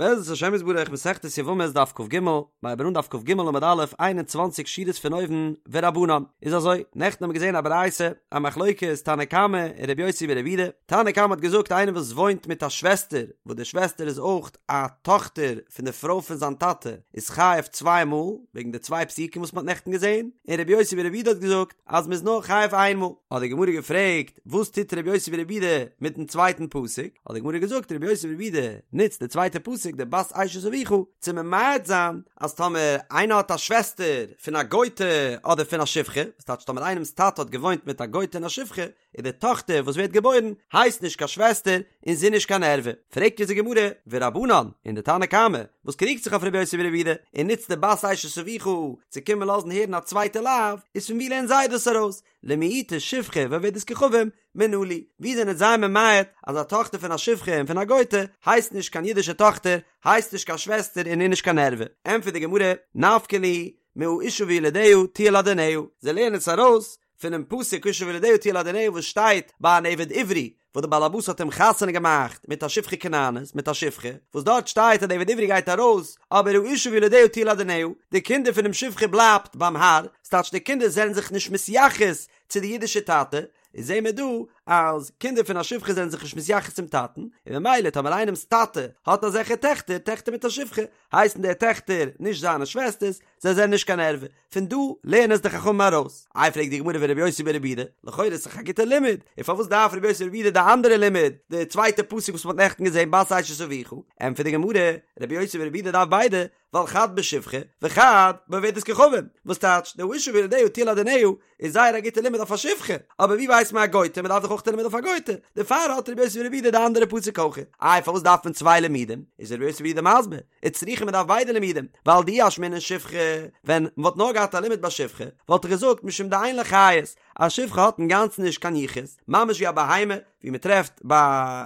בעזרת השם יתברך מסכת יבמות דף כג, מיר הייבן אן דף כג עמוד א', 21 שורות פון אויבן, ורבנן. איז אזוי, נעכטן האבן מיר געזען א ברייתא, א מחלוקת תנא קמא און רבי יוסי ברבי יהודה, תנא קמא האט געזאגט איינער וואס וואוינט מיט א שוועסטער, וואס די שוועסטער איז אויך א טאכטער פון די פרוי פון זיין טאטע, איז חייב צוויי מאל, וועגן די צוויי פסוקים וואס מען האט נעכטן געזען, און רבי יוסי ברבי יהודה האט געזאגט אז מען איז נאר חייב איין מאל. האט די גמרא געפרעגט, וואס טוט רבי יוסי ברבי יהודה מיטן צווייטן פסוק? האט די גמרא געזאגט, רבי יוסי ברבי יהודה נוצט די צווייטע פסוק, די בת אשת אביך, צו ממעט זיין אז טאמער איינער האט א שוועסטער פון א גוי'טע אדער פון א שפחה, וואס טייטש טאמער איינעמ'ס טאטע האט געוואוינט מיט א גוי'טע און א שפחה, איז די טאכטער וואס ווערט געבוירן הייסט נישט קיין שוועסטער און זי איז נישט קיין ערווה. פרעגט אונז די גמרא, ורבנן, און די תנא קמא, וואס קריגט זיך אויף רבי יוסי ברבי יהודה און נוצט די בת אשת אביך צו קומען לאזן הערן א צווייטע לאו, איז פון וואו לערנען זיי דאס ארויס? למעוטי שפחה ועובדת כוכבים מנא להו, ווי זענען זיי ממעט אז א טאכטער פון א שפחה און פון א גוי'טע הייסט נישט קיין אידישע טאכטער, הייסט נישט קיין שוועסטער און איז נישט קיין ערווה? ענטפערט די גמרא, נפקא להו מהאשה וילדיה תהיה לאדוניה, זיי לערנען עס ארויס פונעם פסוק האשה וילדיה תהיה לאדוניה וואס שטייט ביי אן עבד עברי וואס די בעל הבית האט אים חתונה געמאכט מיט א שפחה כנענית מיט א שפחה וואס דארט שטייט אז די עבד עברי גייט ארויס אבער האשה וילדיה תהיה לאדוניה די קינדער פונעם שפחה בלייבט ביים האר ס'טייטש די קינדער זענען זיך נישט מתייחס צו די אידישע טאטע איז זעהן מיר דא אז קינדער פון א שפחה זענען זיך נישט מתייחס צום טאטן און ממילא טאמער איינעמ'ס טאטע האט אזעלכע טעכטער טעכטער מיט א שפחה הייסן די טעכטער נישט זיינע שוועסטערס זיי זענען נישט קיין ערווה פון דא לערנען עס די חכמים ארויס. איי פרעגט די גמרא ורבי יוסי ברבי יהודה, לכאורה איז דאך א גוטע לימוד, און פארוואס דארף רבי יוסי ברבי יהודה די אנדערע לימוד, די צווייטע פסוק וואס מען האט נעכטן געזען בת אשת אביך, ענטפערט די גמרא, רבי יוסי ברבי יהודה דארף ביידע, ווייל חד בשפחה וחד בעובדת כוכבים, וואס טייטש, די האשה וילדיה תהיה לאדוניה איז זייער א גוטע לימוד אויף א שפחה, אבער ווי ווייסט מען א גוי'טע, מען דארף דאך אויך א לימוד אויף א גוי'טע, דערפאר האט רבי יוסי ברבי יהודה די אנדערע פסוק אויך. איי פארוואס דארף מען צוויי לימודים, איז רבי יוסי ברבי יהודה מסביר, וצריכא מען דארף ביידע לימודים, ווייל דאי אשמעינן שפחה, ווען מען וואלט נאר געהאט א לימוד ביי שפחה, וואלט איך געזאגט משום דאין לה חיות, א שפחה האט אינגאנצן נישט קיין יחוס, ממש ווי א בהמה, ווי מען טרעפט ביי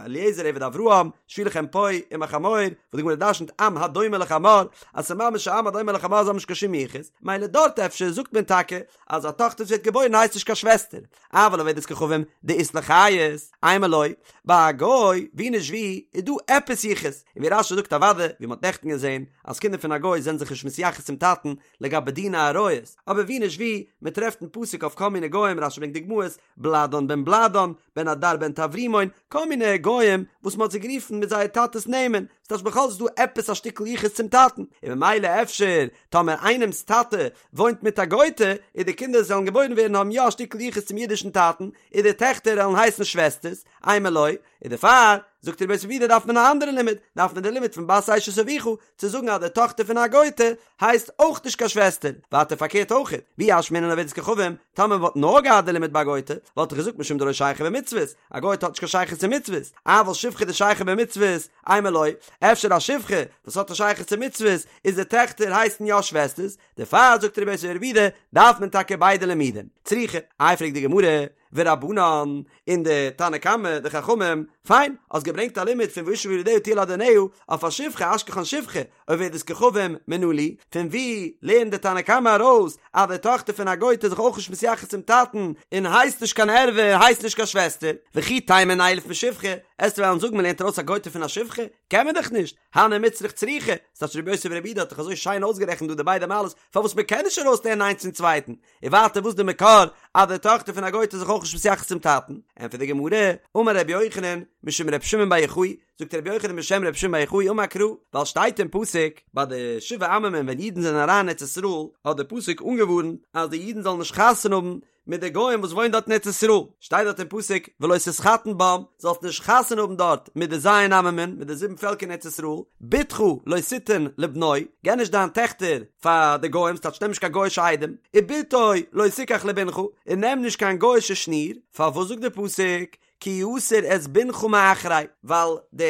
אליעזר עבד אברהם, שבו לכם פה עם החמור, וואס די גמרא דרשנ'ט עם הדומה לחמור, אז ס'איז ממש א עם הדומה לחמור זיי האבן נישט קיין שום יחוס, מילא דארט אפשר זאגט מען טאקע אז א טאכטער וואס ווערט געבוירן הייסט נישט קיין שוועסטער, אבל עובדת כוכבים דאית לה חיות, אימא לא, ביי א גוי, ווי נישט ווי, איז דא עפעס יחוס, און ווי רש"י זאגט אוודאי, ווי מ'האט נעכטן געזען, אז קינדער פון א גוי זענען זיך נישט מתייחס צום טאטן לגבי דיני עריות, אבער ווי נישט ווי, מ'טרעפט אין פסוק אויף כל מיני גוים, רש"י ברענגט דוגמאות, בלאדן בן בלאדן, בן הדר בן טברימון, כל מיני גוים וואס מ'האט זיי גערופן מיט זייער טאטע'ס נעמען, ס'טייטש בכל זאת איז דא עפעס א שטיקל יחוס צום טאטן, און ממילא אפשר טאמער איינעמ'ס טאטע וואוינט מיט א גוי'טע, און די קינדער זאלן געבוירן ווערן האבן יא א שטיקל יחוס צום אידישן טאטן, און די טעכטער וועלן הייסן שוועסטערס, אימא לא, און דערפאר, זאגט רבי יוסי ברבי יהודה דארף מען א אנדערע לימוד, דארף מען די לימוד פון בת אשת אביך, צו זאגן אז די טאכטער פון א גוי'טע הייסט אויך נישט קיין שוועסטער, ווייטער פארקערט אויך, ואי אשמעינן עובדת כוכבים, טאמער מ'וואלט נאר געהאט די לימוד ביי א גוי'טע, וואלט איך געזאגט משום דלא שייכא במצוות, א גוי'טע האט נישט קיין שייכות צו מצוות, אבל שפחה דשייכא במצוות, אימא לא, אפשר א שפחה וואס האט א שייכות צו מצוות, איז די טעכטער הייסן יא שוועסטערס, דערפאר זאגט רבי יוסי ברבי יהודה דארף מען טאקע ביידע לימודים. צריכא, איי פרעגט די גמרא, ורבנן, און די תנא קמא, די חכמים, פיין, האסט געברענגט א לימוד פון והאשה וילדיה תהיה לאדוניה, אויף א שפחה, אשכחן שפחה, עובדת כוכבים מנא להו, פון ווי לערנט די תנא קמא ארויס אז די טאכטער פון א גוי'טע איז זיך אויך נישט מתייחס צום טאטן, און הייסט נישט קיין ערווה און הייסט נישט קיין שוועסטער, וכי תימא נילף משפחה, עסטו וועלן זאגן מ'לערנט ארויס א גוי'טע פון א שפחה? קען מען דאך נישט, הני מיצרך צריכי, ס'טייטש רבי יוסי ברבי יהודה האט דאך אזוי שיין אויסגערעכנט דא די ביידע מעלות פארוואס מ'קען נישט ארויסלערנען איינס פון צווייטן, און ווייטער וואס די מקור אז די טאכטער פון א גוי'טע איז זיך אויך נישט מתייחס צום טאטן? ענטפערט די גמרא, אמר רבי יוחנן משום רבי שמעון בר יוחאי, זאגט רבי יוחנן בשם רבי שמעון בר יוחאי אמר קרא, ווייל שטייט אין פסוק ביי די שבעה עממים ווען אידן זענען אריין אין ארץ ישראל האט די פסוק אנגעווארנט אז די אידן זאלן נישט חתונה האבן מיט די גוים וואס וואוינען דארט אין ארץ ישראל, שטייט דארט אין פסוק ולא תתחתן בם, זאלסט נישט חתונה האבן דארט מיט די ז' עממים, מיט די זיבן פעלקער אין ארץ ישראל, בתך לא תתן לבנו, געב נישט דיין טעכטער פאר די גוים, ס'טייטש נעם נישט קיין גוי'אישע איידעם, ובתו לא תקח לבנך, און נעם נישט קיין גוי'אישע שניר, פארוואס זאגט די פסוק כי יסיר את בנך מאחרי, ווייל די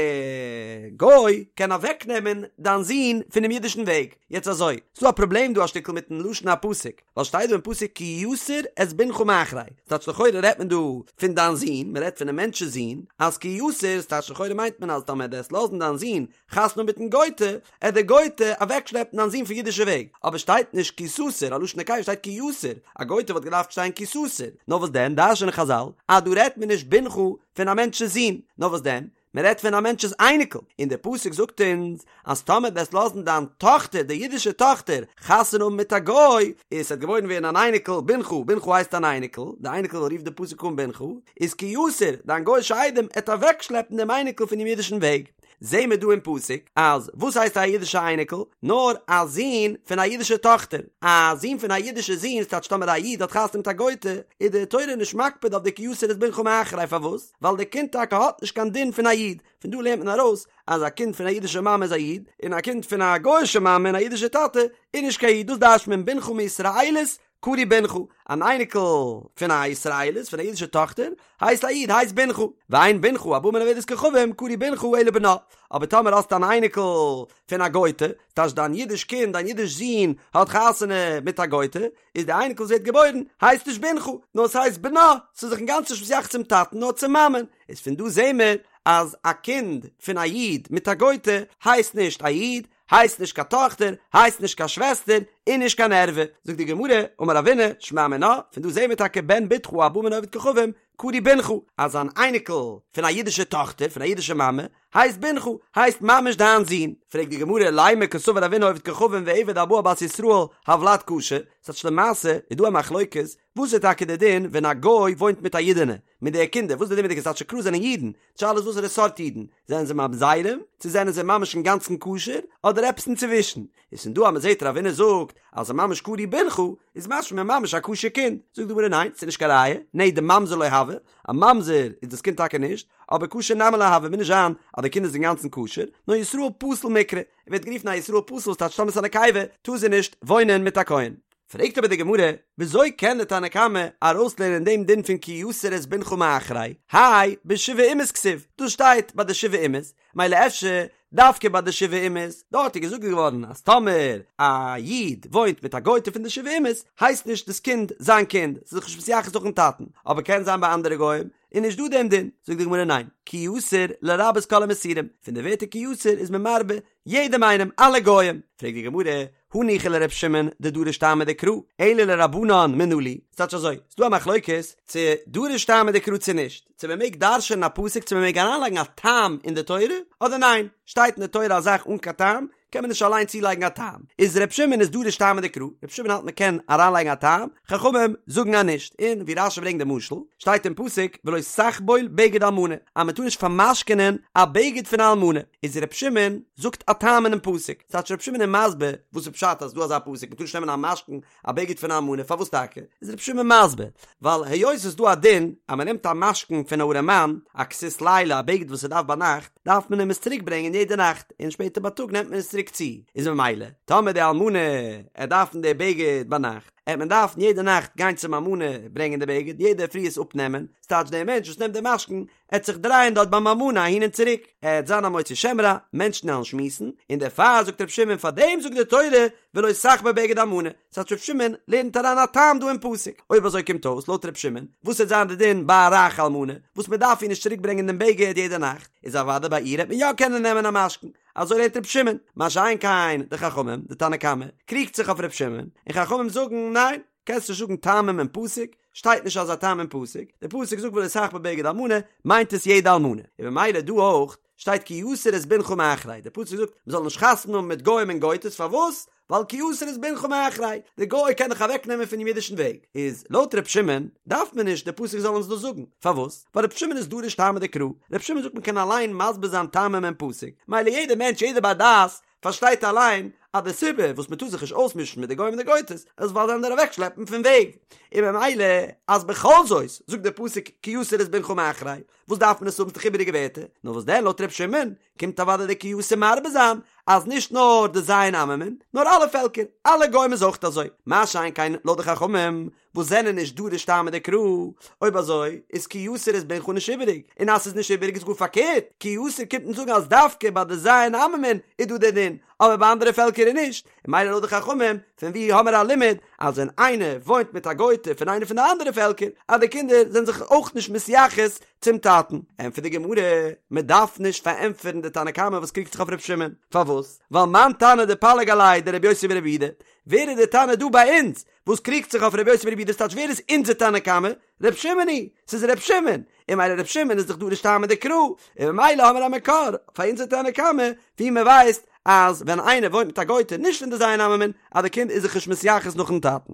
גוי קען אוועק נעמען דיין זון פונעם אידישן וועג, יעצט אזוי, ס'דא א פראבלעם דא א שטיקל מיטן לשון הפסוק, ווייל שטייט דא אין פסוק כי יסיר את בנך מאחרי, ס'טייטש לכאורה רעדט מען דא פון דיין זון, מ'רעדט פונעם מענטש'ס זון, אז כי יסיר, ס'טייטש לכאורה מיינט מען אז טאמער דו וועסט לאזן דיין זון חתונה מיטן גוי'טע, עט די גוי'טע אוועקשלעפן דיין זון פון אידישע וועג, אבער שטייט נישט כי תסיר, א לשון נקבה שטייט כי יסיר, א גוי'טע וואלט געדארפט שטיין כי תסיר, נאר וואס דען דרש'נען חזל אז דא רעדט מען נישט בנך פון א מענטש'ס זון, נאר וואס דען? מען רעדט פון א מענטש'ס אייניקל, און דער פסוק זאגט אונז אז טאמער וועסט לאזן דיין טאכטער, די אידישע טאכטער, חתונה האבן מיט א גוי, איז ס'וועט געבוירן ווערן אן אייניקל, בנך, בנך הייסט אן אייניקל, די אייניקל רופט די פסוק אן בנך, איז כי יסור, דיין גוי'שע איידעם עט אוועקשלעפן דעם אייניקל פונעם אידישן וועג. זעהן מיר דא אין פסוק אז וואס הייסט א אידישע אייניקל? נאר א זון פון א אידישע טאכטער. א זון פון א אידישע זון, ס'טייטש טאמער א איד האט חתונה מיט א גוי'טע, איז די תורה נישט מקפיד אויף די כי יסור את בנך מאחרי, פארוואס? ווייל די קינד טאקע האט נישט קיין דין פון א איד. פון דא לערנט מען ארויס אז א קינד פון א אידישע מאמע איז א איד, און א קינד פון א גוי'אישע מאמע און א אידישע טאטע איז נישט קיין איד, דאס דרש'ט מען בנך מישראלית קרוי בנך, אן אייניקל פון א ישראלית, פון א אידישע טאכטער, הייסט א איד, הייסט בנך, ואין בנך הבא מן העובדת כוכבים קרוי בנך אלא בנה, אבער טאמער האסטו אן אייניקל פון א גוי'טע, ס'טייטש דיין אידיש קינד, דיין אידיש זון האט חתונה מיט א גוי'טע, איז די אייניקל וואס ווערט געבוירן הייסט נישט בנך, נאר ס'הייסט בנה, ס'איז זיך אינגאנצן נישט מתייחס צום טאטן נאר צום מאמען, איז פון דא זעהן מיר אז א קינד פון א איד מיט א גוי'טע הייסט נישט א איד, הייסט נישט קיין טאכטער, הייסט נישט קיין שוועסטער, און נישט קיין ערווה. זאגט די גמרא, אמר רבינא, שמע מינה, פון דא זעהן מיר טאקע בן בתך הבא מן העובד כוכבים, קרוי בנך, אז אן אייניקל פון א אידישע טאכטער, פון א אידישע מאמע, הייסט בנך, הייסט ממש דיין זון. פרעגט די גמרא, לימא קסבר רבינא עובד כוכבים ועבד הבא על בת ישראל, הולד כשר, ס'טייטש למעשה איז דא א מחלוקת, וואס איז טאקע די דין ווען א גוי וואוינט מיט א אידענע, מיט די קינדער, וואס איז די דין מיט די קינדער, ס'טייטש קלאר זענען אידן, די שאלה איז וואסערע סארט אידן, זענען זיי ממזרים, צו זענען זיי ממש אינגאנצן כשר, אדער עפעס אינצווישן, איז פון דא אז מ'זעט רבינא זאגט אז ס'איז ממש קרוי בנך, איז משמע ממש א כשר קינד, זאגט די גמרא ניין, ס'איז נישט קיין ראיה, נע דממזר לא הוי, א ממזר איז דאס קינד טאקע נישט, אבער כשר נמי לא הוי, מוז נישט זיין אז די קינד איז אינגאנצן כשר, נאר ישראל פסול מיקרי, ער ווערט גערופן א ישראל פסול וואס טייטש טאמער ס'איז א נקבה טאר זי נישט וואוינען מיט א כהן. פרעגט אבער די גמרא, וויאזוי קען די תנא קמא ארויסלערנען דעם דין פון כי יסור את בנך מאחרי, האי בשבעה אומות כתיב, דאס שטייט ביי די שבעה אומות, מילא אפשר דווקא ביי די שבעה אומות, דארט איז געזאגט געווארן אז טאמער א איד וואוינט מיט א גוי'טע פון די שבעה אומות, הייסט נישט דאס קינד זיין קינד, ס'איז זיך נישט מתייחס נאכן טאטן, אבער קען זיין ביי אנדערע גוים איז נישט דא דעם דין, זאגט די גמרא ניין, כי יסור לרבות כל המסורים, פון די ווערטער כי יסור איז מען מרבה יעדעם איינעם, אלע גוים. פרעגט די גמרא, הניחא לר' שמעון דדריש טעמא דקרא, אלא לרבנן מנא להו, ס'טייטש אזוי, ס'דא א מחלוקת צו דריש טעמא דקרא צו נישט, צו מ'מעג דרש'ענען א פסוק צו מ'מעג אריינלייגן א טעם אין די תורה, אדער ניין, שטייט אין די תורה א זאך אן קיין טעם, קען מען נישט אליין צולייגן א טעם. איז ר' שמעון איז דריש טעמא דקרא, ר' שמעון האלט מ'קען אריינלייגן א טעם, חכמים זאגן אז נישט, און ווי רש"י ברענגט די משל, שטייט אין פסוק ולא תחבול בגד אלמנה, אז מ'טאר נישט פאר'משכונ'ען א בגד פון א אלמנה, איז ר' שמעון זאגט א טעם אינעם פסוק, ס'טייטש ר' שמעון איז מסביר וואס איז פשט אז ס'דא אזא פסוק מ'טאר נישט נעמען א משכון א בגד פון א אלמנה, פארוואס טאקע? איז ר' שמעון מסביר, ווייל היות ס'איז דא א דין אז מ'נעמט א משכון פון א ארעמאן, א כסות לילה, א בגד וואס ער דארף ביינאכט, דארף מען אים עס צוריק ברענגען יעדע נאכט, און שפעטער בייטאג נעמט מען עס צוריק צו, איז ממילא טאמער די אלמנה עט דארפן די בגד ביינאכט, עט מען דארפן יעדע נאכט גיין צום אלמנה ברענגען די בגד, יעדע פרי עס אפנעמען, ס'טייטש דער מענטש וואס נעמט די משכון עט זיך דרייען דארט ביים אלמנה אהין און צוריק, עט זיין א מוציא שם רע, מענטשן עלן שמועסן, און דערפאר זאגט ר' שמעון פאר דעם זאגט די תורה ולא תחבול בגד אלמנה, ס'טייטש ר' שמעון לערנט אריין א טעם דא אין פסוק, אויב אזוי קומט אויס לויט ר' שמעון, וואס עט זיין די דין ביי א רייכע אלמנה, וואס מען דארף איר נישט צוריק ברענגען דעם בגד יעדע נאכט, איז אוודאי ביי איר העט מען יא קענען נעמען א משכון, אזוי לערנט ר' שמעון, מה שאין כן די חכמים, די תנא קמא, קריגט זיך אויף ר' שמעון, און חכמים זאגן ניין, קענסט נישט זאגן טעמים אין פסוק, שטייט נישט אזא טעם אין פסוק, די פסוק זאגט ולא תחבול בגד אלמנה, מיינט עס יעדע אלמנה, און ממילא דא אויך שטייט כי יסור את בנך מאחרי, די פסוק זאגט מען זאל נישט חתונה האבן מיט גוים און גויטעס, פארוואס? ווייל כי יסור את בנך מאחרי, די גוי קען דיך אוועק נעמען פונעם אידישן וועג, איז לויט ר' שמעון דארף מען נישט די פסוק זאל אונז דאס זאגן, פארוואס? ווייל ר' שמעון איז דריש טעמא דקרא, ר' שמעון זאגט מען קען אליין מסביר זיין טעמים אין פסוק, מילא יעדער מענטש יעדער בר דעת פארשטייט אליין אז די סיבה וואס מען טאר זיך נישט אויסמישן מיט די גוים און די גויטעס איז ווייל זיי וועלן דיר אוועקשלעפן פון וועג, און ממילא אז בכל זאת זאגט דער פסוק כי יסור את בנך מאחרי, וואס דארף מען עס האבן ס'איז דאך איבעריגע ווערטער, נאר וואס דען לויט ר' שמעון קומט אוודאי די כי יסור מרבה זיין אז נישט נאר די ז' עממין נאר אלע פעלקער, אלע גוים איז אויך אזוי, מה שאין כן לויט די חכמים וואס זענען נישט דריש טעמא דקרא, אויב אזוי איז כי יסור את בנך נישט איבעריג, און אז ס'איז נישט איבעריג איז גאר פארקערט, כי יסור קומט אונז זאגן אז דווקא ביי די ז' עממין איז דא דער דין, אבער ביי אנדערע פעלקער איז נישט, און מילא לויט די חכמים, פון ווי האמער א לימוד אז ווען איינער וואוינט מיט א גוי'טע פון איינע פון די אנדערע פעלקער, אז די קינדער זענען זיך אויך נישט מתייחס צום טאטן? ענטפערט די גמרא, מען דארף נישט פארענטפערן די תנא קמא וואס קריגט זיך אויף ר' שמעון, פארוואס? ווייל מאן תנא דפליג עליה דרבי יוסי ברבי יהודה, ווער איז די תנא דא ביי אונז וואס קריגט זיך אויף רבי יוסי ברבי יהודה ס'טייטש ווער איז אונזער תנא קמא? ר' שמעון היא, ס'איז ר' שמעון! און ממילא ר' שמעון איז דאך דורש טעמא דקרא, און ממילא האמיר א מקור פאר אונזער תנא קמא ווי מען ווייסט אז ווען איינער וואוינט מיט א גוי'טע נישט פון די ז' עממין אז די קינד איז זיך נישט מתייחס נאכן טאטן.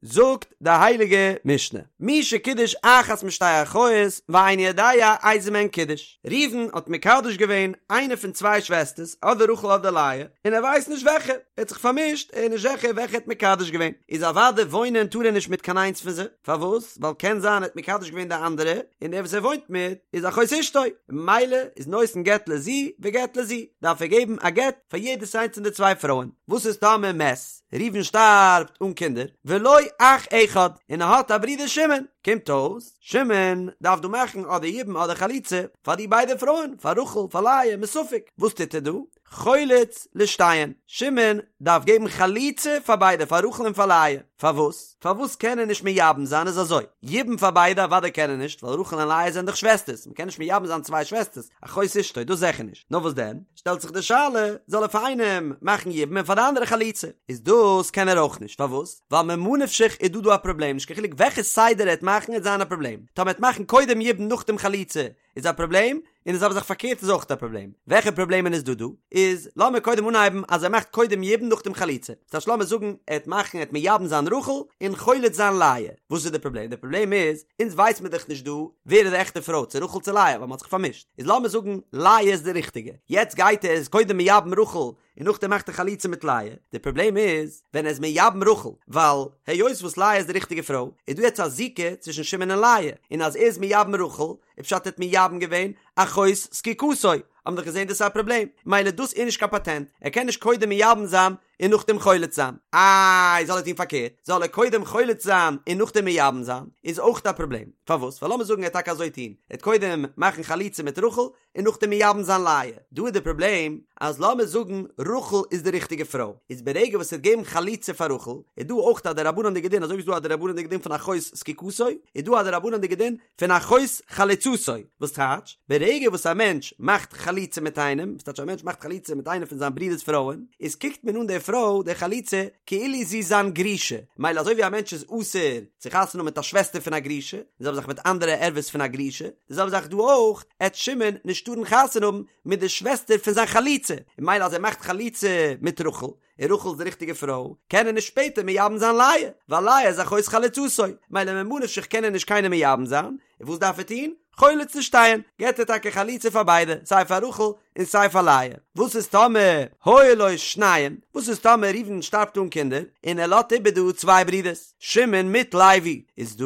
זאגט די הייליגע משנה, מי שקידש אחת משתי אחיות ואינו יודע איזה מהן קידש, ראובן האט מקדש געווען איינע פון צוויי שוועסטערס אדער רחל אדער לאה, און ער ווייסט נישט וועלכע, ער האט זיך פארמישט, ער איז נישט זיכער וועלכע ער האט מקדש געווען, איז אוודאי וואוינען טאר ער נישט מיט קיין איינס פון זיי, פארוואס? ווייל קען זיין ער האט מקדש געווען די אנדערע, און דער וואס ער וואוינט מיט איז אחות אשתו, ממילא איז נותן גט לזו וגט לזו, דארף ער געבן א גט פאר יעדעס איינס פון די צוויי פרויען, וואס איז טאמער מת? ראובן שטארבט אן קינדער, ולו אח אחד, און ער האט א ברודער שמעון, קומט אויס, שמעון דארף דא מאכן אדער יבום אדער חליצה פאר די ביידע פרויען, פאר רחל, פאר לאה, מספק, וואס טוט ער דא? חולץ לשתיהן, שמעון דארף געבן חליצה פאר ביידע, פאר רחל און פאר לאה, פארוואס? פארוואס קען ער נישט מייבם זיין? איז אזוי, יבום פאר ביידע אוודאי קען ער נישט, ווייל רחל און לאה זענען דאך שוועסטערס, מ'קען נישט מייבם זיין צוויי שוועסטערס, אחות אשתו, דאס זיכער נישט, נאר וואס דען? שטעלט זיך די שאלה, זאל ער פאר איינעם מאכן יבום און פאר די אנדערע חליצה? איז דאס קען ער אויך נישט, פארוואס? ווייל ממה נפשך איז דא דא א פראבלעם, נישט קיין חילוק וועלכע סדר ער וועט מאכן וועט זיין א פראבלעם, טאמער ער וועט מאכן קודם יבום נאכדעם חליצה איז א פראבלעם, און די זעלבע זאך פארקערט איז אויך א פראבלעם, וועלכע פראבלעמען איז דא דא? איז לאמיר קודם אנהייבן אז ער מאכט קודם יבום נאכדעם חליצה, ס'טייטש לאמיר זאגן ער וועט מאכן ער וועט מייבם זיין רחל און חולץ זיין לאה, וואס איז די פראבלעם? די פראבלעם איז אונז ווייס מיר דאך נישט דא ווער איז די עכטע פרוי צו רחל צו לאה ווייל מ'האט זיך פארמישט, איז לאמיר זאגן לאה איז די ריכטיגע, יעצט גייט ער איז קודם מייבם רחל און נאכדעם מאכט ער חליצה מיט לאה, די פראבלעם איז ווען ער איז מייבם רחל, ווייל היות וואס לאה איז די ריכטיגע פרוי, איז דא יעצט א זיקה צווישן שמעון און לאה, און אז ער איז מייבם רחל, איז פשט ער האט מייבם געווען אחות זקוקתו, האבן דאך געזען דאס איז א פראבלעם, מילא דאס איז נישט קיין פאטענט, ער קען נישט קודם מייבם זיין און נאכדעם חולץ זיין, איי זאל ער טון פארקערט, זאל ער קודם חולץ זיין און נאכדעם מייבם זיין, איז אויך א פראבלעם, פארוואס? ווייל לאמיר זאגן ער וועט טאקע אזוי טון, ער וועט קודם מאכן חליצה מיט רחל און נאכדעם מייבם זיין לאה, דא איז די פראבלעם אז לאמיר זאגן רחל איז די ריכטיגע פרוי, איז ברגע וואס ער וועט געבן חליצה פאר רחל, איז דא אויך א דרבנן'דיגע דין, אזוי ווי ס'איז דא א דרבנן'דיגע דין פון אחות זקוקתו, איז דא א דרבנן'דיגע דין פון אחות חלוצתו, וואס טייטש, ברגע וואס א מענטש מאכט חליצה מיט איינעם, וואס טייטש א מענטש מאכט חליצה מיט איינע פון זיין ברודער'ס פרויען, איז קוקט מען אן די פרוי, די חלוצה, כאילו זי איז זיין גרושה, מילא אזוי ווי א מענטש איז אסור צו חתונה האבן מיט א שוועסטער פון א גרושה, די זעלבע זאך מיט אנדערע ערוות פון א גרושה, די זעלבע זאך דא אויך, עט שמעון נישט טארן חתונה האבן מיט די שוועסטער פון זיין חלוצה, און מילא אז ער מאכט חליצה מיט רחל, און רחל איז די ריכטיגע פרוי, קען ער נישט שפעטער מייבם זיין לאה, ווייל לאה איז אחות חלוצתו, מילא ממה נפשך קען ער נישט קיינעם מייבם זיין, און וואס דארף ער טון? חולץ לשתיהן, געט ער טאקע חליצה פאר ביידע, סיי פאר רחל און סיי פאר לאה. וואס איז טאמער היו לו שניים? וואס איז טאמער ראובן שטארבט אן קינדער, און ער לאזט איבער דא צוויי ברידערס, שמעון מיט לוי, איז דא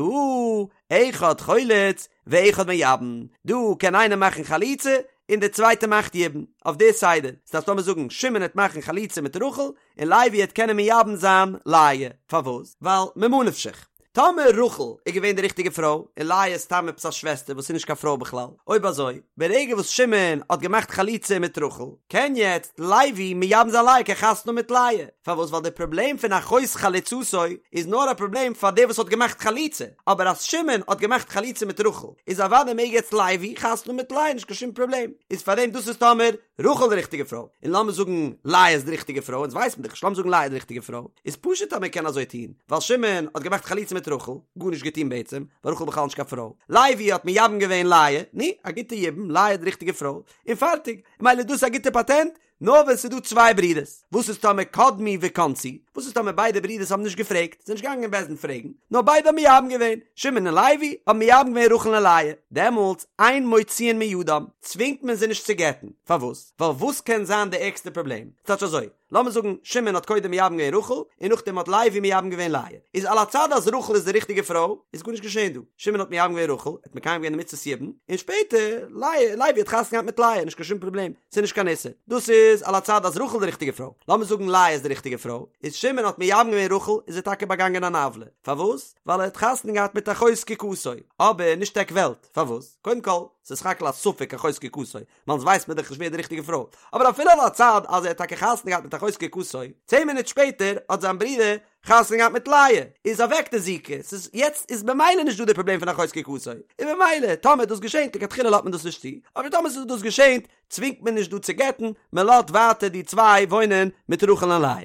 אחד חולץ ואחד מייבם, דא קען איינער מאכן חליצה און דער צווייטער מאכט יבום, אויף די סדר, ס'דארף לאמיר זאגן שמעון העט מאכן חליצה מיט רחל, און לוי העט קענען מייבם זיין לאה, פארוואס? ווייל ממה נפשך, טאמער רחל איז געווען די ריכטיגע פרוי, און לאה איז סתם עפעס א שוועסטער וואס איז נישט קיין פרוי בכלל, אויב אזוי, ברגע וואס שמעון האט געמאכט חליצה מיט רחל, קען יעצט לוי מייבם זיין לאה, קען חתונה האבן מיט לאה, פארוואס? ווייל די פראבלעם פון אחות חלוצתו איז נאר א פראבלעם פאר דער וואס האט געמאכט חליצה, אבער אז שמעון האט געמאכט חליצה מיט רחל, איז אוודאי מעג יעצט לוי חתונה האבן מיט לאה, נישט קיין שום פראבלעם, איז פארדעם דאס איז טאמער רחל די ריכטיגע פרוי, און לאמיר זאגן לאה איז די ריכטיגע פרוי, אונז ווייסט מען דאך נישט, לאמיר זאגן לאה איז די ריכטיגע פרוי, איז פשוט אז מען קען אזוי טון, ווייל שמעון האט געמאכט חליצה מיט רחל, גארנישט געטון בעצם, ווייל רחל איז בכלל נישט קיין פרוי, לוי האט מייבם געווען לאה, נו, א גוטע יבום, לאה איז די ריכטיגע פרוי, און פארטיג, מילא דאס איז א גוטע פאטענט, נאר ווען ס'איז דא צוויי ברידערס, וואס איז טאמער קדמו וכנסו, וואס איז טאמער ביידע ברידערס האבן נישט געפרעגט, זענען נישט געגאנגען אין בית דין פרעגן, נאר ביידע האבן מייבם געווען, שמעון און לוי האבן מייבם געווען רחל און לאה, דעמאלטס אין מוציאין מידם, צווינגט מען זיי נישט צו גט'ן, פארוואס? ווייל וואס קען זיין די ערגסטע פראבלעם? ס'טייטש אזוי, לאמיר זאגן שמעון האט קודם מייבם געווען רחל, און נאכדעם האט לוי מייבם געווען לאה, איז על הצד אז רחל איז די ריכטיגע פרוי, איז גארנישט געשען דא, שמעון האט מייבם געווען רחל, ער האט מקיים געווען די מצות יבום, און שפעטער לאה, לוי האט חתונה געהאט מיט לאה, נישט קיין שום פראבלעם. ס'איז נישט קיין איסור. דאס איז על הצד אז רחל איז די ריכטיגע פרוי. לאמיר זאגן לאה איז די ריכטיגע פרוי, איז שמעון האט מייבם געווען רחל איז ער טאקע באגאנגען אן עוולה. פארוואס? ווייל ער האט חתונה געהאט מיט אחות זקוקתו. אבער נישט עק וועלט. פארוואס? קודם כל, ס'איז סך הכל א ספק אחות זקוקתו, ווייל אונז ווייסט מען דאך נישט ווער איז די ריכטיגע פרוי. אבער אפילו על הצד אז ער האט טאקע חתונה געהאט מיט אחות זקוקתו, צען מינוט שפעטער האט זיין ברודער חתונה געהאט מיט לאה, איז אוועק די זיקה, ס'איז יעצט איז במילא נישט דא די פראבלעם פון אחות זקוקתו, און במילא טאמער דאס געשענט לכתחילה לאזט מען דאס נישט צו, אבער טאמער ס'איז דאס געשענט צווינגט מען נישט דא צו גט'ן, מען לאזט ווייטער די צוויי וואוינען מיט רחל און לאה.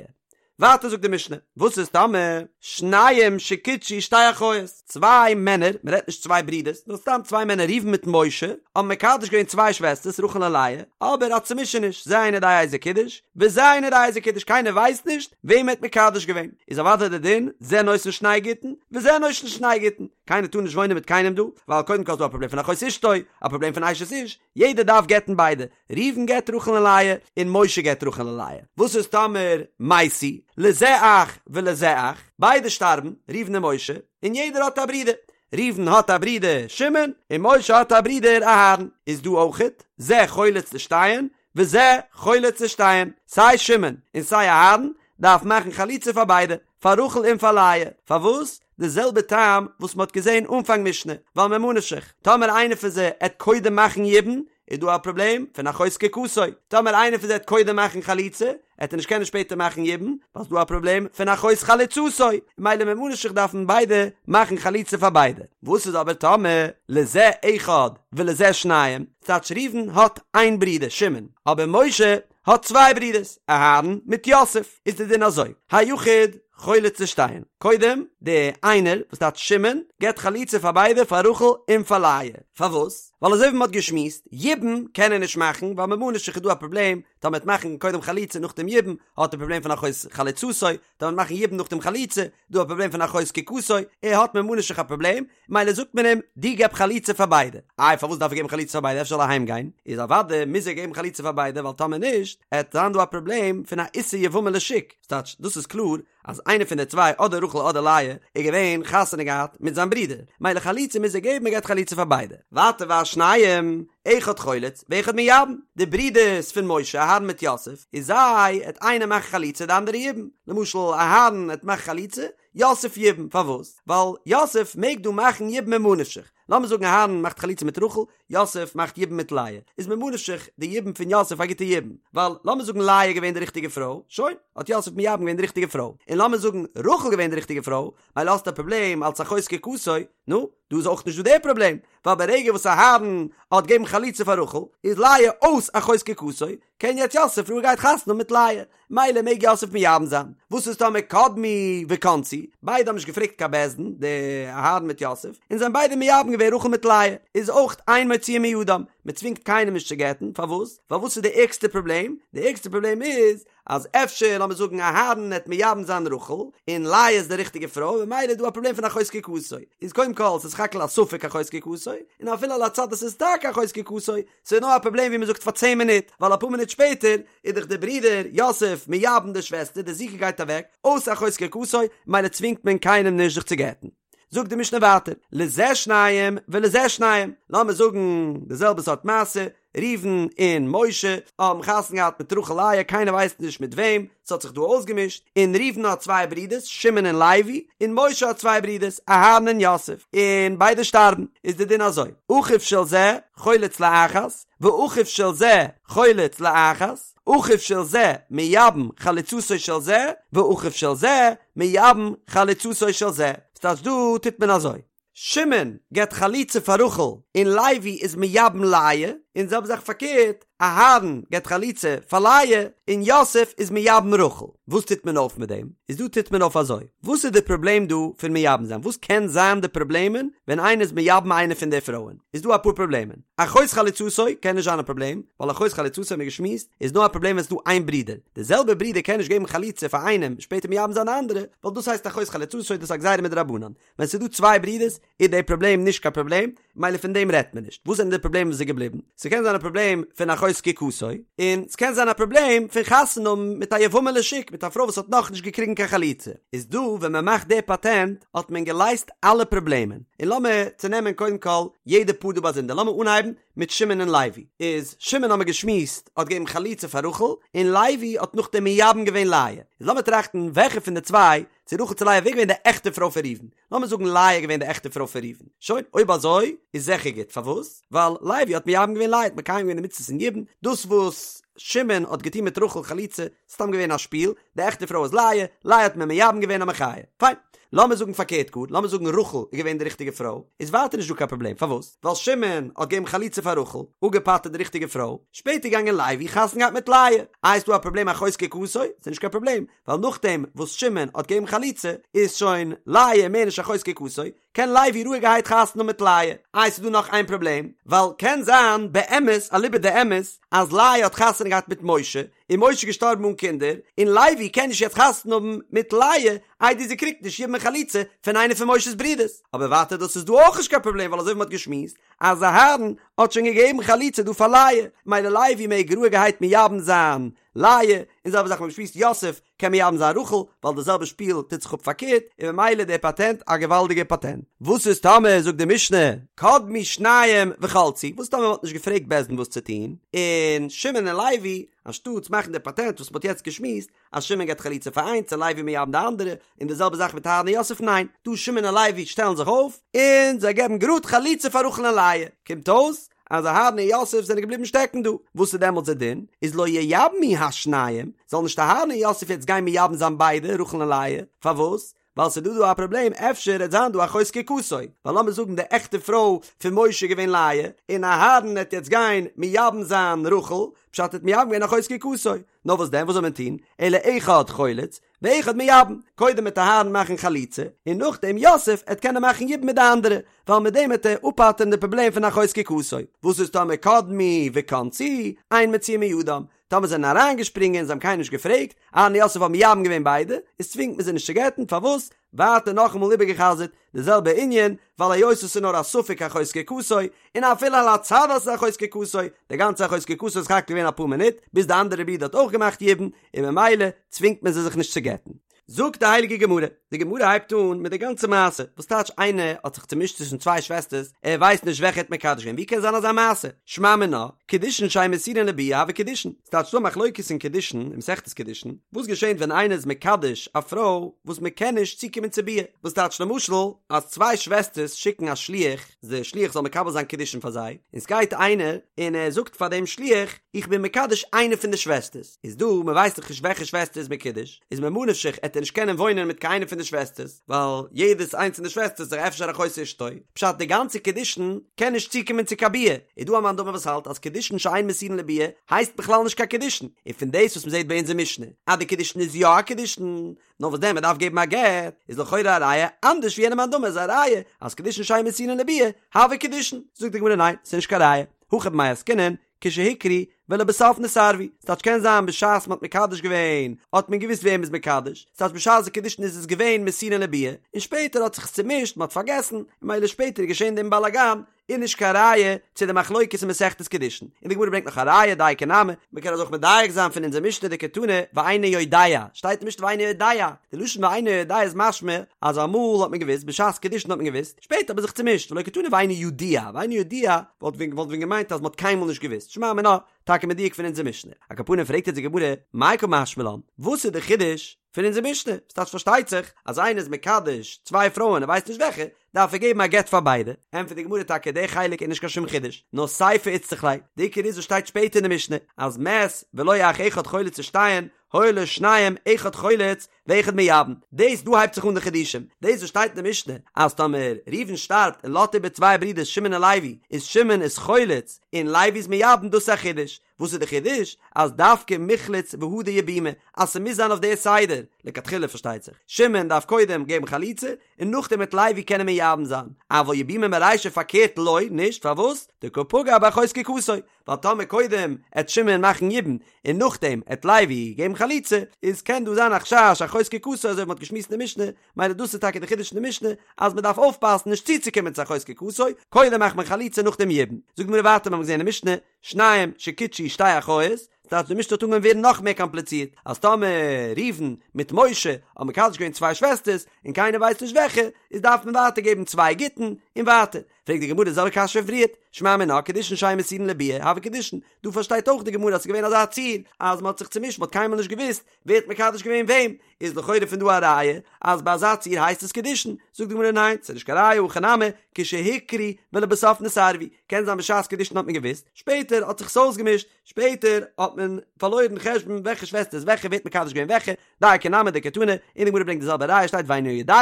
ווייטער זאגט די משנה, וואס איז טאמער שניים שקידשו שתי אחיות, צוויי מענער, מען רעדט נישט צוויי ברידערס, נאר סתם צוויי מענער ראובן מיט משה, האבן מקדש געווען צוויי שוועסטערס רחל און לאה, אבער א צומישעניש, זה אינו יודע איזה קידש, וזה אינו יודע איזה קידש, קיינער ווייסט נישט וועם ער האט מקדש געווען, איז אוודאי די דין, זה נותן שני גיטין, וזה נותן שני גיטין, קיינער טאר נישט וואוינען מיט קיינעם דא, ווייל קודם כל איז דא א פראבלעם פון אחות אשתו, א פראבלעם פון אשת איש, יעדער דארף גט'ן ביידע, ראובן גט רחל און לאה, און משה גט רחל און לאה. וואס איז טאמער מתו, לזה אח ולזה אח, ביידע שטארבן, ראובן און משה, און יעדער האט א ברודער, ראובן האט א ברודער שמעון, און משה האט א ברודער אהרן, איז דא אויכעט, זה חולץ לשתיהן, וזה חולץ לשתיהן, סיי שמעון און סיי אהרן דארף מאכן חליצה פאר ביידע, פאר רחל און פאר לאה, פארוואס? די זעלבע טעם וואס מ'האט געזען אנפאנג משנה, ווייל ממה נפשך, טאמער איינער פון זיי עט קודם מאכן יבום, איז דא א פראבלעם פון אחות זקוקתו, טאמער איינער פון זיי עט קודם מאכן חליצה, עט ער נישט קענען שפעטער מאכן יבום, ווייל ס'דא א פראבלעם פון אחות חלוצתו, ממילא ממה נפשך דארפן ביידע מאכן חליצה פאר ביידע. וואס איז אבער טאמער לזה אחד ולזה שניים, ס'טייטש ראובן האט איין ברודער שמעון, אבער משה האט צוויי ברידערס, אהרן מיט יוסף, איז די דין אזוי, היחיד חולץ לשתיהן, קודם די איינער וואס טייטש שמעון געבט חליצה פאר ביידע פאר רחל און פאר לאה, פארוואס? ווייל אזוי ווי מ'האט געשמועסט, יבום קען ער נישט מאכן ווייל ממה נפשך איז דא א פראבלעם, טאמער מ'עט מאכן קודם חליצה נאכדעם יבום, האט ער פראבלעם פון אחות חלוצתו, טאמער מ'עט מאכן יבום נאכדעם חליצה, דא א פראבלעם פון אחות זקוקתו, ער האט ממה נפשך א פראבלעם, מילא זאגט מען אים, דו געב חליצה פאר ביידע. איי פארוואס דארף ער געבן חליצה פאר ביידע אפשר זאל ער אהיים גיין? איז אוודאי מוז ער געבן חליצה פאר ביידע ווייל טאמער נישט עט זיין דא א פראבלעם פון א איסור יבמה לשוק, ס'טייטש דאס איז קלאר אז איינער פון די צוויי אדער רחל אדער לאה איז געווען חתונה געהאט מיט זיין ברודער, מילא חליצה מוז ער געבן ער געבט חליצה פאר ביידע. ווייטער והשניים, אחד חולץ ואחד מייבם, די ברידערס פון משה אהרן מיט יוסף, איז זיי עט איינער מאכן חליצה די אנדערע יבום, למשל אהרן עט מאכן חליצה, יוסף יבום, פארוואס? ווייל יוסף מעג דא מאכן יבום ממה נפשך, לאמיר זאגן אהרן מאכט חליצה מיט רחל, יוסף מאכט יבום מיט לאה, איז ממה נפשך די יבום פון יוסף א גוטע יבום, ווייל לאמיר זאגן לאה איז געווען די ריכטיגע פרוי, שוין, האט יוסף מייבם געווען די ריכטיגע פרוי, און לאמיר זאגן רחל געווען די ריכטיגע פרוי, מילא האסטו א פראבלעם אלס אחות זקוקתו, נו, דא איז אויך נישט דא די פראבלעם, ווייל ברגע וואס אהרן האט געבן חליצה פאר רחל, איז לאה אויס אחות זקוקתו, קען יעצט יוסף רואיגערהייט חתונה האבן מיט לאה, מילא מעג יוסף מייבם זיין. וואס איז טאמער קדמו וכנסו, ביידע האבן נישט געפרעגט קיין בית דין, די אהרן מיט יוסף, און זיי האבן ביידע מייבם געווען רחל מיט לאה, איז אויך אין מוציאין מידם, מען צווינגט קיינעם נישט צו גט'ן, פארוואס? ווייל וואס איז די ערגסטע פראבלעם? די ערגסטע פראבלעם איז אז אפשר לאמיר זאגן אהרן העט מייבם זיין רחל, און לאה איז די ריכטיגע פרוי, ממילא איז דא א פראבלעם פון אחות זקוקתו, איז קודם כל ס'איז סך הכל א ספק אחות זקוקתו, און אפילו על הצד אז ס'איז טאקע אחות זקוקתו, ס'איז נאר א פראבלעם ווי מ'זאגט פאר צען מינוט, ווייל אפאר מינוט שפעטער איז דאך דער ברודער יוסף מייבם די שוועסטער, די זיקה גייט אוועק, אויס אחות זקוקתו, ממילא צווינגט מען קיינעם נישט זיך צו גט'ן. זאגט די משנה ווייטער, לזה שניים ולזה שניים, לאמיר זאגן די זעלבע סארט מעשה, ראובן און משה האבן חתונה געהאט מיט רחל לאה, קיינער ווייסט נישט מיט וועם, ס'האט זיך דא אויסגעמישט, און ראובן האט צוויי ברידערס, שמעון און לוי, און משה האט צוויי ברידערס, אהרן און יוסף, און ביידע שטארבן, איז די דין אזוי, אחיו של זה חולץ לאחת, ואחיו של זה חולץ לאחת, אחיו של זה מייבם חלוצתו של זה, ואחיו של זה מייבם חלוצתו של זה, ס'טייטש דא טוט מען אזוי. שמעון געבט חליצה פאר רחל און לוי איז מייבם לאה, און זעלבע זאך פארקערט, אהרן געבט חליצה פאר לאה און יוסף איז מייבם רחל. וואס טוט מען אויף מיט דעם? איז דא טוט מען אויף אזוי, וואס איז די פראבלעם דא פון מייבם זיין? וואס קען זיין די פראבלעמען ווען איינער איז מייבם איינע פון די פרויען? איז דא אפאר פראבלעמען. אחות חלוצתו קען נישט זיין א פראבלעם, ווייל אחות חלוצתו האבן מיר געשמועסט איז נאר א פראבלעם ווען ס'איז דא איין ברודער. די זעלבע ברודער קען נישט געבן חליצה פאר איינעם שפעטער מייבם זיין די אנדערע, ווייל דאס הייסט אחות חלוצתו דאס איז א גזירה מדרבנן. ווען ס'איז דא צוויי ברידערס איז די פראבלעם נישט קיין פראבלעם, מילא פון דעם רעדט מען נישט. וואס זענען די פראבלעמען וואס איז געבליבן? ס'קען זיין א פראבלעם פון אחות זקוקתו, און ס'קען זיין א פראבלעם פון חתונה האבן מיט א יבמה לשוק, מיט א פרוי וואס האט נאכנישט געקריגן קיין חליצה. איז דא ווען מ'מאכט די פאטענט האט מען געלייזט אלע פראבלעמען. און לאמיר צונעמען קודם כל יעדע פאר דא באזונדער. לאמיר אנהייבן מיט שמעון און לוי. איז שמעון האמיר געשמועסט האט געגעבן חליצה פאר רחל, און לוי האט נאכדעם מייבם געווען לאה. איז לאמיר טראכטן וועלכע פון די צוויי צו רחל צו לאה ווער געווען די עכטע פרוי פון ראובן? לאמיר זאגן לאה איז געווען די עכטע פרוי פון ראובן. שוין, אויב אזוי איז זיכער גוט. פארוואס? ווייל לוי האט מייבם געווען לאה, האט מקיים געווען די מצוות פון יבום. דאס וואס שמעון האט געטון מיט רחל חליצה, סתם געווען א שפיל, די עכטע פרוי איז לאה, לאה האט מען מייבם געווען א מחיה. פיין. לאמיר זאגן פארקערט גאר, לאמיר זאגן רחל איז געווען די ריכטיגע פרוי, איז ווייטער נישט דא קיין פראבלעם, פארוואס? ווייל שמעון האט געגעבן חליצה פאר רחל, אפגעפטר'ט די ריכטיגע פרוי, שפעטער געגאנגען לוי חתונה געהאט מיט לאה, איי איז דא א פראבלעם אחות זקוקתו? ס'איז נישט קיין פראבלעם, ווייל נאכדעם וואס שמעון האט געגעבן חליצה איז שוין לאה מער נישט אחות זקוקתו, קען לוי רואיגערהייט חתונה האבן מיט לאה. איי ס'איז דא נאך איין פראבלעם, ווייל קען זיין באמת אליבא דאמת אז לאה האט חתונה געהאט מיט משה, און משה איז געשטארבן אן קינדער, און לוי קען נישט יעצט חתונה האבן מיט לאה איידער זי קריגט נישט יבום און חליצה פון איינע פון משה'ס ברודערס. אבער ווייטער דאס איז דא אויך נישט קיין פראבלעם ווייל אזוי ווי מ'האט געשמועסט אז אהרן האט שוין געגעבן חליצה דא פאר לאה, מילא לוי מעג רואיגערהייט מייבם זיין לאה, און זעלבע זאך מ'האט געשמועסט יוסף קען מייבם זיין רחל, ווייל די זעלבע שפיל טוט זיך אפ פארקערט, און ממילא דער פאטענט א געוואלדיגער פאטענט. וואס איז טאמער זאגט די משנה קדמו שניים וחלצו, וואס טאמער מ'האט נישט געפרעגט בית דין וואס צו טון, און שמעון און לוי אנשטאטס מאכן די פאטענט וואס מ'האט יעצט געשמועסט, אז שמעון געבט חליצה פאר איינס און לוי מייבם די אנדערע, און די זעלבע זאך מיט אהרן און יוסף ניין, דא שמעון און לוי שטעלן זיך אויף, און זיי געבן גראד חליצה פאר רחל און לאה, קומט אויס אז אהרן און יוסף זענען געבליבן שטעקן דא, וואס איז דעמאלטס דער דין? איז לא ייבמו השניים, זאל נישט אהרן און יוסף יעצט גיין מייבם זיין ביידע, רחל און לאה, פארוואס? ווייל ס'איז דא דא א פראבלעם אפשר עט זיין דא אחות זקוקתו, ווייל לאמיר זאגן די עכטע פרוי פון משה איז געווען לאה, און אהרן עט יעצט גיין מייבם זיין רחל, פשט ער האט מייבם געווען אחות זקוקתו, נאר וואס דען וואס זאל מען טון, אלא אחד חולץ, ואחד מייבם, קודם עט אהרן מאכן חליצה, און נאכדעם יוסף עט קענען מאכן יבום מיט די אנדערע, ווייל מיט דעם עט ער אפפטר'ן די פראבלעם פון אחות זקוקתו. וואס איז טאמער קדמו וכנסו, אין מוציאין מידם, טאמער זענען אריינגעשפרינגען זיי האבן קיינעם נישט געפרעגט, אהרן און יוסף האבן מייבם געווען ביידע, איז צווינגט מען זיי נישט צו גט'ן, פארוואס? ווייטער נאכאמאל איבערגע'חזר'ט די זעלבע ענין, ווייל היות עס איז נאר א ספק אחות זקוקתו, און אפילו על הצד אז עס איז אחות זקוקתו, די גאנצע אחות זקוקתו איז סך הכל געווען אפאר מינוט, ביז די אנדערע ברודער האט אויך געמאכט יבום, און ממילא צווינגט מען זיי זיך נישט צו גט'ן. זאגט די הייליגע גמרא, די גמרא הייבט אן מיט די גאנצע מעשה, וואס טייטש איינער האט זיך צומישט צווישן צוויי שוועסטערס, ער ווייסט נישט וועלכע ער האט מקדש געווען, ווי קען זיין אזא מעשה? שמע מינה, קידושין שאין מסורין לביאה הוו קידושין, ס'טייטש ס'דא א מחלוקת אין קידושין, אין מסכת קידושין, וואס געשענט ווען איינער איז מקדש א פרוי וואס מען קען נישט צוקומען צו ביאה, וואס טייטש למשל אז צוויי שוועסטערס שיקן א שליח, דער שליח זאל מקבל זיין קידושין פאר זיי, און ס'גייט איינער און ער זאגט פאר דעם שליח, איך בין מקדש איינע פון די שוועסטערס, איז דא, מען ווייסט דאך נישט וועלכע שוועסטער איז מקודש, איז ממה נפשך עט ער נישט קענען וואוינען מיט קיין איינע פון די שוועסטערס, ווייל יעדעס איינס פון די שוועסטערס איז דאך אפשר אחות אשתו, פשט די גאנצע קידושין קען נישט צוקומען צו קיין ביאה, איז דא א מאן דאמר וואס האלט אז קידושין שאין מסורין לביאה הייסט בכלל נישט קיין קידושין, און פון דאס וואס מען זעט ביי אונזער משנה אז די קידושין איז יא א קידושין, נאר וואס דען מען דארף געבן א גט, איז לכאורה א ראיה אנדערש ווי יענע מאן דאמר איז א ראיה אז קידושין שאין מסורין לביאה הוו קידושין, זאגט די גמרא ניין ס'איז נישט קיין ראיה, הכא במאי עסקינן, כשהוכרו ולבסוף נתערבו, ס'טייטש קען זיין בשעת מ'האט מקדש געווען האט מען געוואוסט וועם מ'איז מקדש, ס'טייטש בשעת די קידושין איז עס געווען מסורין לביאה, און שפעטער האט זיך עס צומישט מ'האט פארגעסן, און מילא שפעטער איז געשען דעם באלאגאן, איז נישט קיין ראיה צו די מחלוקת אין מסכת קידושין, און די גמרא ברענגט נאך א ראיה דייקא נמי, מ'קען אזוי אויך מדייק זיין פון אונזער משנה דקתני ואינו יודע, שטייט אין משנה ואינו יודע, די לשון ואינו יודע איז משמע אז אמאל האט מען געוואוסט בשעת קידושין האט מען געוואוסט, שפעטער האט מען זיך צומישט, ולא קתני ואינו ידוע, ואינו ידוע וואלט ווען וואלט ווען געמיינט אז מען האט קיינמאל נישט געוואוסט, שמע מינה, טאקע מדויק פון אונזער משנה. על כל פנים פרעגט יעצט די גמרא, מאי קא משמע לן, וואס איז די חידוש פון אונזער משנה? ס'טייטש פארשטייט זיך אז איינער איז מקדש צוויי פרויען ער ווייסט נישט וועלכע, דארף ער געבן א גט פאר ביידע, ענטפערט די גמרא טאקע די חלק איז נישט קיין שום חידוש, נאר סיפא איצטריך ליה, די עיקר איז וואס שטייט שפעטער אין די משנה, אז מת ולא אח אחד חולץ לשתיהן, היו לו שניים אחד חולץ ואחד מייבם, דאס דא הייבט זיך אן די חידושים, דאס וואס שטייט אין די משנה אז טאמער ראובן שטארבט און לאזט איבער צוויי ברידערס שמעון און לוי, איז שמעון איז חולץ און לוי איז מייבם דאס איז א חידוש, וואס איז די חידוש? אז דווקא מיחלץ והדר יבומי, אז ס'מוז זיין אויף די סדר, לכתחילה פארשטייט זיך, שמעון דארף קודם געבן חליצה און נאכדעם וועט לוי קענען מייבם זיין, אבל יבומי מרישא פארקערט לא, נישט, פארוואס? דקא פגע באחות זקוקתו, ווייל טאמער קודם עט שמעון מאכן יבום און נאכדעם עט לוי געבן חליצה, איז קען דא זיין א חשש אחות זקוקתו אזוי ווי מ'האט געשמועסט אין די משנה, מילא דאס איז טאקע די חידוש אין די משנה אז מ'דארף אויפפאסן נישט צוצוקומען צו אחות זקוקתו, קודם מאכט מען חליצה נאכדעם יבום. זאגט די גמרא ווייטער מ'האט געזען אין משנה, שניים שקידשו שתי אחיות, ס'טייטש די משנה האט אנגעהויבן ווערן נאך מער קאמפליצירט, אז טאמער ראובן מיט משה האבן מקדש געווען צוויי שוועסטערס און קיינער ווייסט נישט וועלכע, איז דארף מען ווייטער געבן צוויי גיטין. און ווייטער, פרעגט די גמרא די זעלבע קשיא פון פריערט, שמע מינה קידושין שאין מסורין לביאה, הוו קידושין, דא פארשטייט אויך די גמרא אז ס'איז געווען אזא ציור אז מ'האט זיך צומישט מ'האט קיינמאל נישט געוואוסט ווער האט מקדש געווען וועם, איז לכאורה פון דא א ראיה אז ביי אזא ציור הייסט עס קידושין, זאגט די גמרא ניין ס'איז נישט קיין ראיה הכא נמי כשהוכרו ולבסוף נתערבו, קען זיין בשעת קידושין האט מען געוואוסט, שפעטער האט זיך עס אויסגעמישט, שפעטער האט מען פארלוירן חשבון וועלכע שוועסטער איז וועלכע, ווער האט מקדש געווען וועלכע, דייקא נמי דקתני, און די גמרא ברענגט די זעלבע ראיה שטייט ואינו יודע,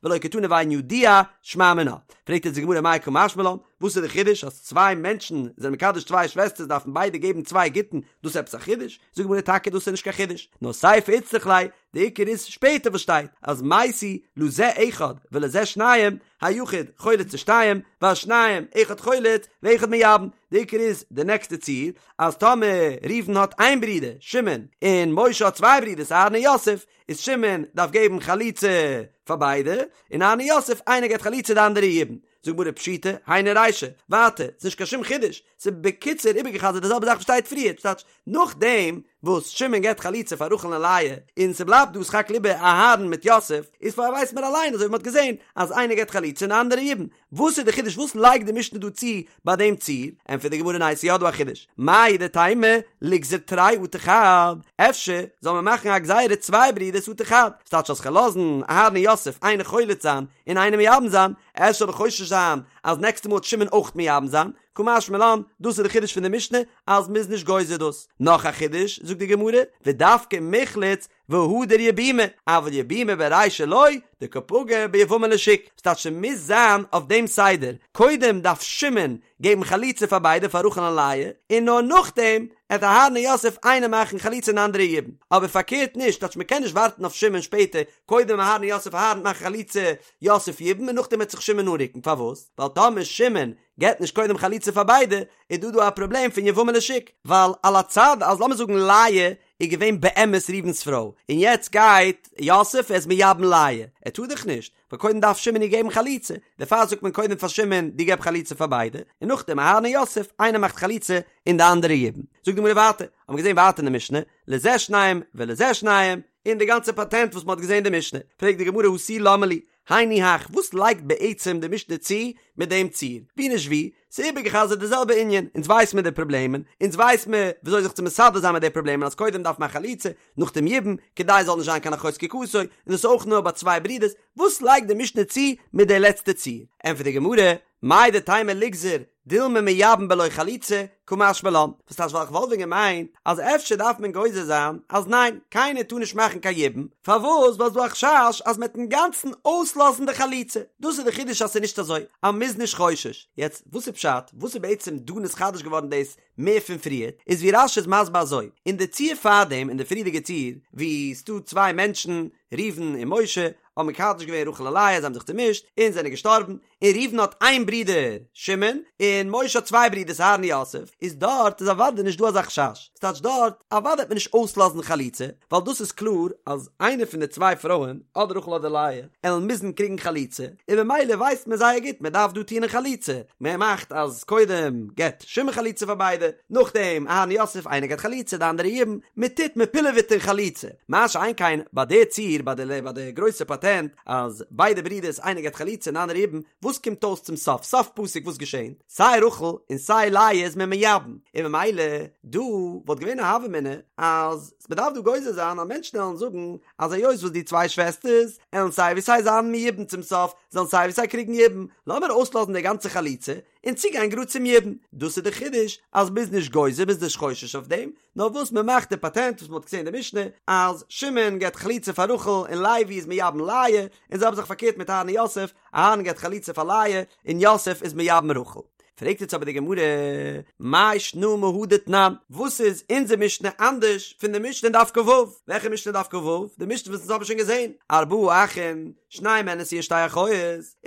ולא קתני ואינו ידוע, שמע מינה. פרעגט יעצט די גמרא מאי קא משמע לן, וואס איז די חידוש אז צוויי מענטשן זענען מקדש צוויי שוועסטערס דארפן ביידע געבן צוויי גיטין, דאס איז עפעס א חידוש? זאגט די גמרא טאקע דאס איז נישט קיין חידוש, נאר סיפא איצטריך ליה, די עיקר איז שפעטער וואס שטייט אז מתו לזה אחד ולזה שניים, היחיד חולץ לשתיים, והשניים אחד חולץ ואחד מייבם, די עיקר איז די נעקסטע ציור, אז טאמער ראובן האט איין ברודער שמעון און משה האט צוויי ברודערס אהרן און יוסף, איז שמעון דארף געבן חליצה פאר ביידע, און אהרן און יוסף איינער געבט חליצה די אנדערע יבום. זאגט גמרא פשיטא, היינו רישא, ווייטער, ס'נישט קיין שום חידוש, ס'איז בקיצור איבערגעחזרט די זעלבע זאך וואס שטייט פריער, ס'טייטש, נאכדעם וואס שמעון געבט חליצה פאר רחל און לאה, און ס'בלייבט דא סך הכל איבער אהרן מיט יוסף, איז פאר ווייסט מען אליין אזוי ווי מ'האט געזען אז איינער געבט חליצה און די אנדערע יבום, וואס איז די חידוש וואס לייגט די משנה דא צו ביי דעם ציור? ענטפערט די גמרא ניין ס'איז יא דא א חידוש, מהו דתימא ליגזור תרי אטו חד, אפשר זאל מען מאכן א גזירה צוויי ברידערס אטו חד, ס'טייטש אז כ'וועל לאזן אהרן און יוסף איינער חולץ זיין און איינער מייבם זיין, אפשר זאל איך חושש זיין אז נעקסטע מאל וועט שמעון אויך מייבם זיין, קא משמע לן, דאס איז די חידוש פון די משנה אז מ'איז נישט גוזר דאס. נאך א חידוש, זאגט די גמרא, ודווקא מיחלץ והדר יבומי, אבל יבומי ברישא לא, דקא פגע ביבמה לשוק, ס'טייטש ס'מוז זיין אויף דעם סדר, קודם דארף שמעון געבן חליצה פאר ביידע פאר רחל און לאה, און נאר נאכדעם עט אהרן און יוסף איינער מאכן חליצה און אנדערע יבום, אבער פארקערט נישט, טייטש מ'קען נישט ווארטן אויף שמעון שפעטער, קודם אהרן און יוסף אהרן מאכן חליצה יוסף יבום און נאכדעם וועט זיך שמעון אנרוקן, פארוואס? ווייל טאמער שמעון געבט נישט קודם חליצה פאר ביידע, איז דא דא א פראבלעם פון יבמה לשוק, ווייל על הצד אז לאמיר זאגן לאה איז געווען באמת ראובן'ס פרוי, און יעצט גייט יוסף ער איז מייבם לאה, ער טאר דאך נישט, ווייל קודם דארף שמעון איר געבן חליצה, דערפאר זאגט מען קודם פאר שמעון דו געב חליצה פאר ביידע, און נאכדעם אהרן און יוסף, איינער מאכט חליצה און די אנדערע יבום. זאגט די גמרא ווייטער, האבן מיר געזען ווייטער אין די משנה, לזה שניים ולזה שניים, און די גאנצע פאטענט וואס מען האט געזען אין די משנה, פרעגט די גמרא הא תו למה לי, היינו הך, וואס לייגט בעצם די משנה צו מיט דעם ציור? ווי נישט ווי, ס'איז איבערגע'חזר'ט די זעלבע ענין, אונז ווייס מיר די פראבלעמען, אונז ווייס מיר וויאזוי זיך צו מסדר זיין מיט די פראבלעמען אז קודם דארף מען א חליצה, נאכדעם יבום, כדי עס זאל נישט זיין קיין אחות זקוקתו, און דאס איז אויך נאר ביי צוויי ברידערס, וואס לייגט די משנה צו מיט די לעצטע ציור? ענטפערט די גמרא, מהו דתימא ליגזור דילמא מייבם בלא חליצה, קא משמע לן, וואס טייטש ווייל איך וואלט ווען געמיינט אז אפשר דארף מען גוזר זיין אז ניין, קיינער טאר נישט מאכן קיין יבום, פארוואס ווייל ס'דא א חשש אז מ'עט אינגאנצן אויסלאזן די חליצה, דאס איז די חידוש אז ס'איז נישט אזוי אז מ'איז נישט חושש, יעצט וואס איז פשט וואס איז בעצם דא נתחדש געווארן דאס מער פון פריער, איז ווי רש"י איז מסביר אזוי, אין די ציור פארדעם אין די פריערדיגע ציור ווי ס'דא צוויי מענטשן ראובן און משה האבן מקדש געווען רחל און לאה זיי האבן זיך צומישט און זענען געשטארבן, און ראובן האט איין ברודער שמעון, און משה האט צוויי ברודערס אהרן און יוסף, איז דארט איז אוודאי נישט דא אזא חשש, ס'טייטש דארט אוודאי וועט מען נישט אויסלאזן חליצה, ווייל דאס איז קלאר אז איינע פון די צוויי פרויען, אדער רחל אדער לאה, עלן מוזן קריגן חליצה, און במילא ווייסט מען זייער גוט מען דארף דא טון אין חליצה, מען מאכט אז קודם געבט שמעון חליצה פאר ביידע, נאכדעם אהרן יוסף איינער געבט חליצה די אנדערע יבום, מען טוט מען פילעוועט אין חליצה, מה שאין כן ביי די ציור ביי די ביי די גרויסע פאטענט אז ביידע ברידערס איינער געבט חליצה און די אנדערע יבום, וואס קומט אויס צום סוף סוף פסוק וואס געשענט? סיי רחל און סיי לאה איז מען מייבם, און ממילא דא וואלט געווען א הוה אמינא אז מ'דארף דא גוזר זיין אז מענטשן עלן זאגן אז היות וואס די צוויי שוועסטערס עלן סיי ווי סיי זיין מייבם צום סוף זאלן סיי ווי סיי קריגן יבום, לאמיר אויסלאזן די גאנצע חליצה און צוגיין גראד צום יבום. דאס איז די חידוש אז מ'איז נישט גוזר מ'איז נישט חושש אויף דעם, נאר וואס מ'מאכט די פאטענט וואס מ'האט געזען אין די משנה אז שמעון געבט חליצה פאר רחל און לוי איז מייבם לאה, און זעלבע זאך פארקערט מיט אהרן און יוסף, אהרן געבט חליצה פאר לאה און יוסף איז מייבם רחל. פרעגט יעצט אבער די גמרא, מאי שנא מהא דתנן, וואס איז אונזער משנה אנדערש פון די משנה אין דף כ"ו? וועלכע משנה אין דף כ"ו? די משנה וואס אונז האבן שוין געזען, ארבעה אחים, שנים מהן נשואין שתי אחיות,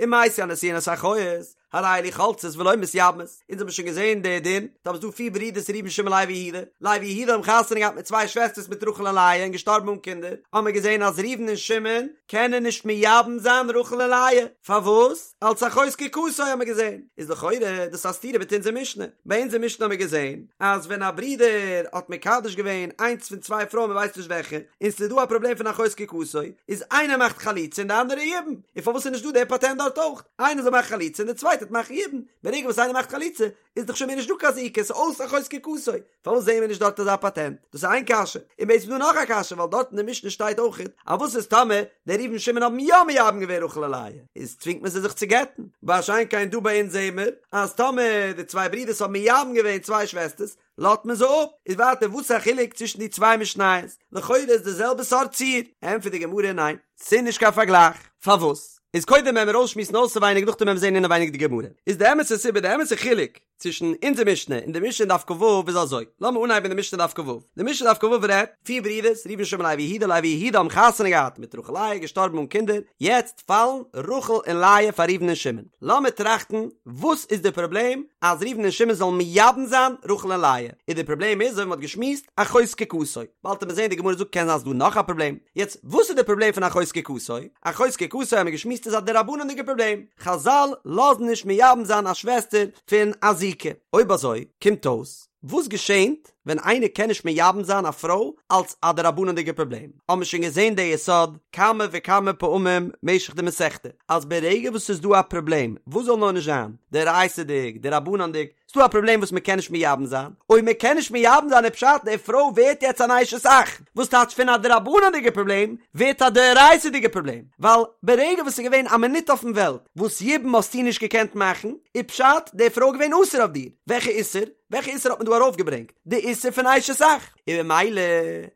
ומתו הנשואין את האחיות. הרי אלו חולצות ולא מתייבמות, אונז האבן שוין געזען די דין, טאמער ס'איז דא פיר ברידערס ראובן שמעון לוי יהודה, לוי יהודה האבן חתונה געהאט מיט צוויי שוועסטערס מיט רחל און לאה און געשטארבן אן קינדער, האבן מיר געזען אז ראובן און שמעון קענען נישט מייבם זיין רחל און לאה, פארוואס? אלס אחות זקוקתו האבן מיר געזען, איז לכאורה דאס א סתירה מיט אונזער משנה, ביי אונזער משנה האבן מיר געזען אז ווען א ברודער האט מקדש געווען איינס פון צוויי פרויען מען ווייסט נישט וועלכע, און ס'איז דא א פראבלעם פון אחות זקוקתו, איז איינער מאכט חליצה און די אנדערע יבום, און פארוואס איז נישט דא דער פאטענט דארט אויך, איינער זאל מאכן חליצה און די צווייטע וועט מאכן יבום, ברגע וואס איינער מאכט חליצה איז דאך שוין מער נישט דא קיין זיקה, ס'איז אויס אחות זקוקתו, פארוואס זעהן מיר נישט דארט אזא פאטענט? דאס איז איין קשיא, און בעצם איז דא נאך א קשיא ווייל דארט אין די משנה שטייט אויכעט אז וואס איז טאמער די ראובן שמעון האבן יא מייבם געווען רחל און לאה, איז צווינגט מען זיי זיך צו גט'ן, מה שאין כן דא ביי אונז זעהן מיר אז טאמער די צוויי ברידערס האבן מייבם געווען צוויי שוועסטערס לאזט מען זיי אפ, איז ווייטער וואס איז א חילוק צווישן די צוויי משניות? לכאורה איז די זעלבע סארט ציור, ענטפערט די גמרא ניין, ס'איז נישט קיין פארגלייך, פארוואס? איז קודם וועלן מיר אויסשמועסן אויסעווייניג נאכדעם וועלן מיר זעהן אינעווייניג די גמרא, איז די אמת'ע סיבה די אמת'ע חילוק צווישן אונזער משנה און די משנה אין דף כ"ו איז אזוי, לאמיר אנהייבן די משנה דף כ"ו, די משנה דף כ"ו רעדט, פיר ברידערס, ראובן שמעון לוי יהודה, לוי יהודה האבן חתונה געהאט מיט רחל לאה, געשטארבן אן קינדער, יעצט פאלן רחל און לאה פאר ראובן און שמעון, לאמיר טראכטן וואס איז די פראבלעם אז ראובן און שמעון זאלן מייבם זיין רחל און לאה, און די פראבלעם איז אזוי ווי מען האט געשמועסט, אחות זקוקתו, באלד וועט מען זען די גמרא זאגט קען זיין ס'דא נאך א פראבלעם, יעצט וואס איז די פראבלעם פון אחות זקוקתו? אחות זקוקתו האבן מיר געשמועסט איז א דרבנן'דיגע פראבלעם, חזל לאזן נישט מייבם זיין א שוועסטער פון א זיקה. אויב אזוי קומט אויס, וואס געשענט ווען איינער קען נישט מייבם זיין א פרוי אלס א דרבנן'דיגע פראבלעם? האבן מיר שוין געזען די יסוד כמה וכמה פעמים משך די מסכתא, אז ברגע וואס ס'איז דא א פראבלעם, וואס זאל נאר נישט זיין, דאורייתא'דיג, דרבנן'דיג, ס'דא א פראבלעם וואס מ'קען נישט מייבם זיין, אויב מ'קען נישט מייבם זיין איז פשט די פרוי ווערט יעצט אן אשת אח, וואס טייטש פון א דרבנן'דיגע פראבלעם ווערט א דאורייתא'דיגע פראבלעם, ווייל ברגע וואס ס'איז געווען א מינוט אויפן וועלט וואס יבום האסטו נישט געקענט מאכן, איז פשט די פרוי געווען אסור אויף דיר, וועלכע איסור? וועלכע איסור האט מען דא ארויפגעברענגט? די איסור פון אשת אח! און ממילא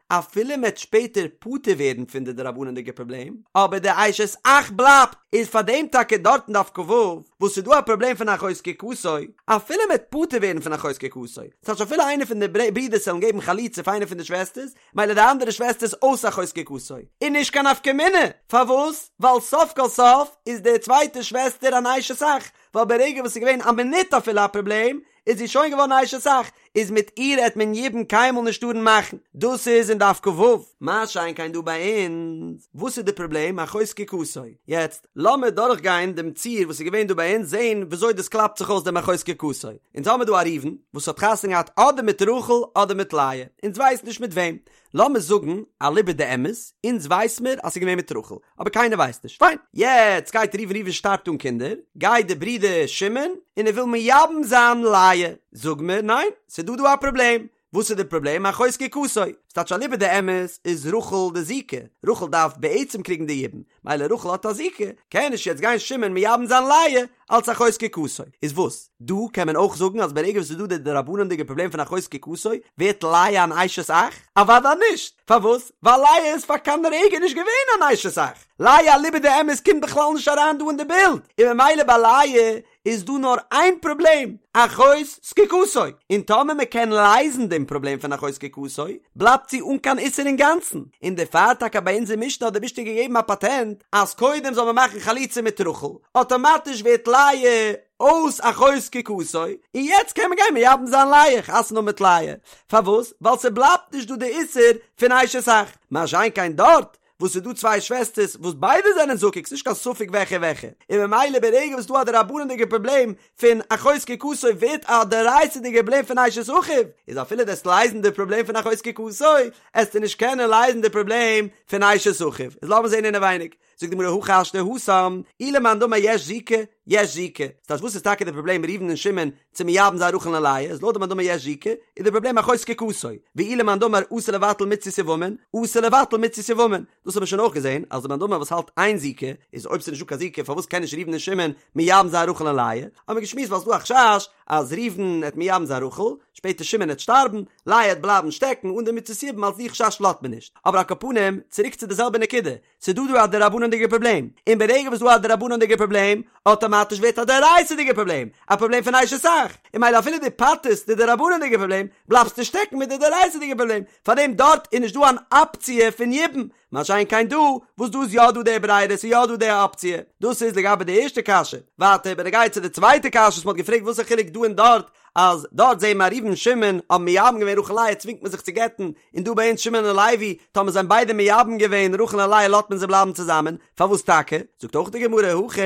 אפילו מ'עט שפעטער פטור ווערן פון די דרבנן'דיגע פראבלעם, אבער די אשת אח בלייבט, איז פאר דעם טאקע דארט אין דף כ"ו וואס ס'איז דא א פראבלעם פון אחות זקוקתו, אפילו מ'עט פטור ווערן פון אחות זקוקתו, ס'טייטש אפילו איינער פון די ברידערס וועלן געבן חליצה פאר איינע פון די שוועסטערס, מילא די אנדערע שוועסטער איז אויס אחות זקוקתו, איז נישט קיין נפקא מינה, פארוואס? ווייל סוף כל סוף איז די צווייטע שוועסטער אן אשת אח, ווייל ברגע וואס ס'איז געווען א מינוט אפילו א פראבלעם, איז זי שוין געווארן אשת אח, איז מיט איר העט מען יבום קיינמאל נישט טארן מאכן, דאס איז אין דף כ"ו. מה שאין כן דא ביי אונז, וואס איז די פראבלעם אחות זקוקתו? יעצט לאמיר דורך גיין דעם ציור וואס איז געווען דא ביי אונז זען וויאזוי דאס קלאפט זיך אויס דעם אחות זקוקתו. אונז האמיר דא א ראובן וואס האט חתונה געהאט אדער מיט רחל אדער מיט לאה, אונז ווייסן נישט מיט וועם, לאמיר זאגן אליבא דאמת, אונז ווייס מיר אז ס'איז געווען מיט רחל, אבער קיינער ווייסט נישט, פיין. יעצט גייט ראובן, ראובן שטארבט אן קינדער, גייט די ברודער שמעון און ער וויל מייבם זיין לאה, זאג מיר ניין, ס'איז דא דא א פראבלעם, וואס איז די פראבלעם? אחות זקוקתו, ס'טייטש אליבא דאמת איז רחל די זיקה, רחל דארף בעצם קריגן די יבום, מילא רחל האט א זיקה, קען נישט יעצט גיין שמעון מייבם זיין לאה אלץ אחות זקוקתו. איז וואס? דא קען מען אויך זאגן אז ברגע וואס ס'איז דא די דרבנן'דיגע פראבלעם פון אחות זקוקתו, ווערט לאה אן אשת אח? אוודאי נישט! פארוואס? ווייל לאה איז פאר קיין רגע נישט געווען אן אשת אח! לאה אליבא דאמת קומט בכלל נישט אריין דא אין די בילד, און ממילא ביי לאה איז דא נאר איין פראבלעם, אחות זקוקתו, און טאמער מען קען לייזן דעם פראבלעם פון אחות זקוקתו, בלייבט זי אן קיין איסור אינגאנצן, און דערפאר טאקע ביי אונזער משנה האט די משנה געגעבן א פאטענט אז קודם זאל מען מאכן חליצה מיט רחל, אטאמאטיש ווערט לאה אויס אחות זקוקתו, און יעצט קען מען גיין מייבם זיין לאה, חתונה האבן מיט לאה, פארוואס? ווייל ס'בלייבט נישט דא די איסור פון אשת אח, מה שאין כן דארט וואס ס'איז דא צוויי שוועסטערס וואס ביידע זענען זקוק, ס'נישט קיין ספק וועלכע וועלכע, און ממילא ברגע וואס ס'דא א דרבנן'דיגע פראבלעם פון אחות זקוקתו ווערט א דאורייתא'דיגע פראבלעם פון אשת אחיו, איז אפילו דו עסט לייזן די פראבלעם פון אחות זקוקתו, עסטו נישט קענען לייזן די פראבלעם פון אשת אחיו. איז לאמיר זען אינעווייניג. זאגט די גמרא הכי השתא התם, אי למאן דאמר יש זיקה, יש זיקה. ס'טייטש וואס איז טאקע די פראבלעם ראובן און שמעון צו מייבם זיין רחל און לאה, איז לויט די מאן דאמר יש זיקה, איז די פראבלעם אחות זקוקתו, ואי למאן דאמר אסור לבטל מצות יבמין, אסור לבטל מצות יבמין. דאס האט מען שוין אויך געזען, אז די מאן דאמר וואס האלט אין זיקה, איז אויב ס'איז נישטא קיין זיקה פארוואס קען נישט ראובן און שמעון מייבם זיין רחל און לאה? האט מען געשמועסט ווייל ס'איז דא א חשש אז ראובן עט מייבם זיין רחל, שפעטער שמעון עט שטארבן, לאה עט בלייבן שטעקן אן די מצות יבום אלס די חשש לאזט מען נישט. אבער על כל פנים, צוריק צו די זעלבע נקודה, ס'איז דא דא א דרבנן'דיגע פראבלעם, און ברגע וואס דא א דרבנן'דיגע פראבלעם, אטאמאטיש ווערט א דאורייתא'דיגע פראבלעם, א פראבלעם פון אשת אח, און מילא אפילו דו פטר'סט די דרבנן'דיגע פראבלעם, בלייבסטו שטעקן מיט די דאורייתא'דיגע פראבלעם, פארדעם דארט איז נישט דא אן אפציע פון יבום. מה שאין כן דא, וואס דא איז יא דא די ברירה, ס'איז יא דא די אפציע. דאס איז לגבי די ערשטע קשיא. ווייטער בנוגע צו די צווייטע קשיא וואס מ'האט געפרעגט וואס איז חילוק דא און דארט, אז דארט זעהן מיר ראובן שמעון האבן מייבם געווען רחל לאה צווינגט מען זיך צו גט'ן, און דא ביי אונז שמעון און לוי, טאמער זיי האבן ביידע מייבם געווען רחל און לאה לאזט מען זיי בלייבן צוזאמען, פארוואס טאקע? זאגט אויך די גמרא הכא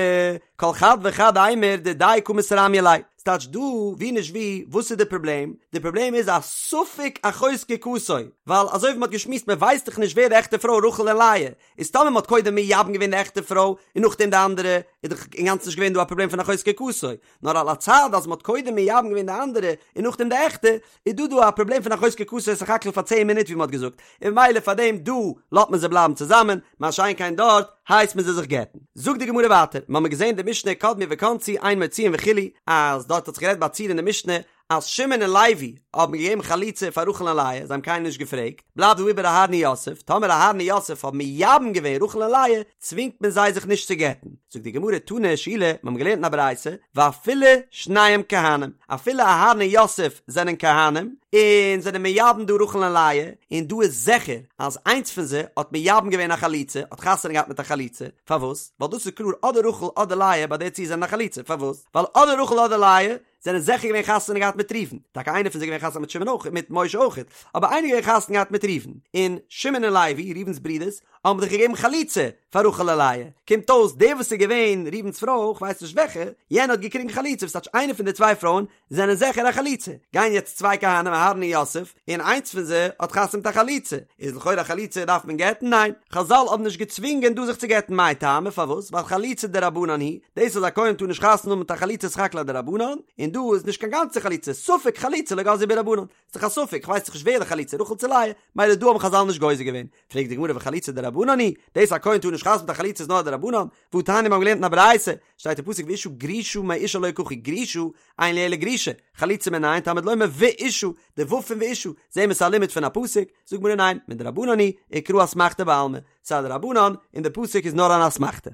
כל חד וחד אימור דידיה קא מתרמיא ליה, ס'טייטש דא ווי נישט ווי, וואס איז די פראבלעם? די פראבלעם איז א ספק אחות זקוקתו, ווייל אזוי ווי מ'האט געשמועסט מ'ווייסט דאך נישט ווער די עכטע פרוי רחל און לאה, איז טאמער מ'האט קודם מייבם געווען די עכטע פרוי און נאכדעם די אנדערע, איז דאך אינגאנצן נישט געווען דא א פראבלעם פון אחות זקוקתו, נאר על הצד אז מ'האט קודם מייבם געווען די אנדערע און נאכדעם די עכטע, איז דא דא א פראבלעם פון אחות זקוקתו סך הכל פאר צען מינוט ווי מ'האט געזאגט, און ממילא פאר דעם דא לאזט מען זיי בלייבן צוזאמען, מה שאין כן דארט הייסט מען זיי זיך גט'ן. זאגט די גמרא ווייטער, מ'האמיר געזען די משנה קדמו וכנסו אין מוציאין וכו', אז דארט האט זיך גערעדט ביי א ציור אין די משנה אז שמעון און לוי האבן געגעבן חליצה פאר רחל און לאה, זיי האבן קיינעם נישט געפרעגט, בלייבט דא איבער אהרן און יוסף, טאמער אהרן און יוסף האבן מייבם געווען רחל און לאה, צווינגט מען זיי זיך נישט צו גט'ן. זאגט די גמרא תנא שילא, מיר האבן געלערנט אין א ברייתא, ואפילו שניהם כהנים, אפילו אהרן און יוסף זענען כהנים, און זענען מייבם דא רחל און לאה, און דא איז זיכער אז איינס פון זיי האט מייבם געווען א חלוצה, האט חתונה געהאט מיט א חלוצה, פארוואס? ווייל דאס איז קלאר אדער רחל אדער לאה ביי די ציור זענען א חלוצה, פארוואס? ווייל אדער רחל אדער לאה זענען זיכער געווען חתונה געהאט מיט ראובן, טאקע איינער פון זיי געווען חתונה מיט שמעון אויך, מיט משה אויך, אבער איינער געווען חתונה געהאט מיט ראובן, און שמעון און לוי, ראובן'ס ברידערס, האבן דאך געגעבן חליצה פאר רחל און לאה, קומט אויס דער וואס איז געווען ראובן'ס פרוי, כ'ווייס נישט וועלכע, יענע האט געקריגן חליצה, וואס טייטש איינע פון די צוויי פרויען זענען זיכער א חלוצה, גייען יעצט צוויי כהנים אהרן און יוסף, און איינס פון זיי האט חתונה מיט א חלוצה, איז לכאורה א חלוצה דארף מען גט'ן? ניין, חזל האבן נישט געצווינגען דא זיך צו גט'ן מאי טעמא פארוואס? ווייל חליצה דרבנן היא, דאס אז א כהן טאר נישט חתונה האבן מיט א חלוצה איז סך הכל א דרבנן, און דא איז נישט קיין גאנצע חליצה, ספק חליצה לא גזרו בהו רבנן, ס'איז דאך א ספק, כ'ווייס דאך נישט ווער די חלוצה רחל צו לאה, מילא דא האבן חזל נישט גוזר געווען. פרעגט די גמרא וחליצה דרבנן היא, דאס א כהן טאר נישט חתונה מיט א חלוצה איז נאר א דרבנן, והתניא מיר האבן געלערנט אין א ברייתא, שטייט אין פסוק ואשה גרושה מאישה לא יקחו גרושה, אין לי אלא גרושה, חלוצה מנין תלמוד לומר ואשה, די ו' פון ואשה, זעהן מיר ס'איז א לימוד פון א פסוק, זאגט גמרא ניין, מדרבנן היא, וקרא אסמכתא בעלמא, ס'איז א דרבנן, און די פסוק איז נאר אן אסמכתא.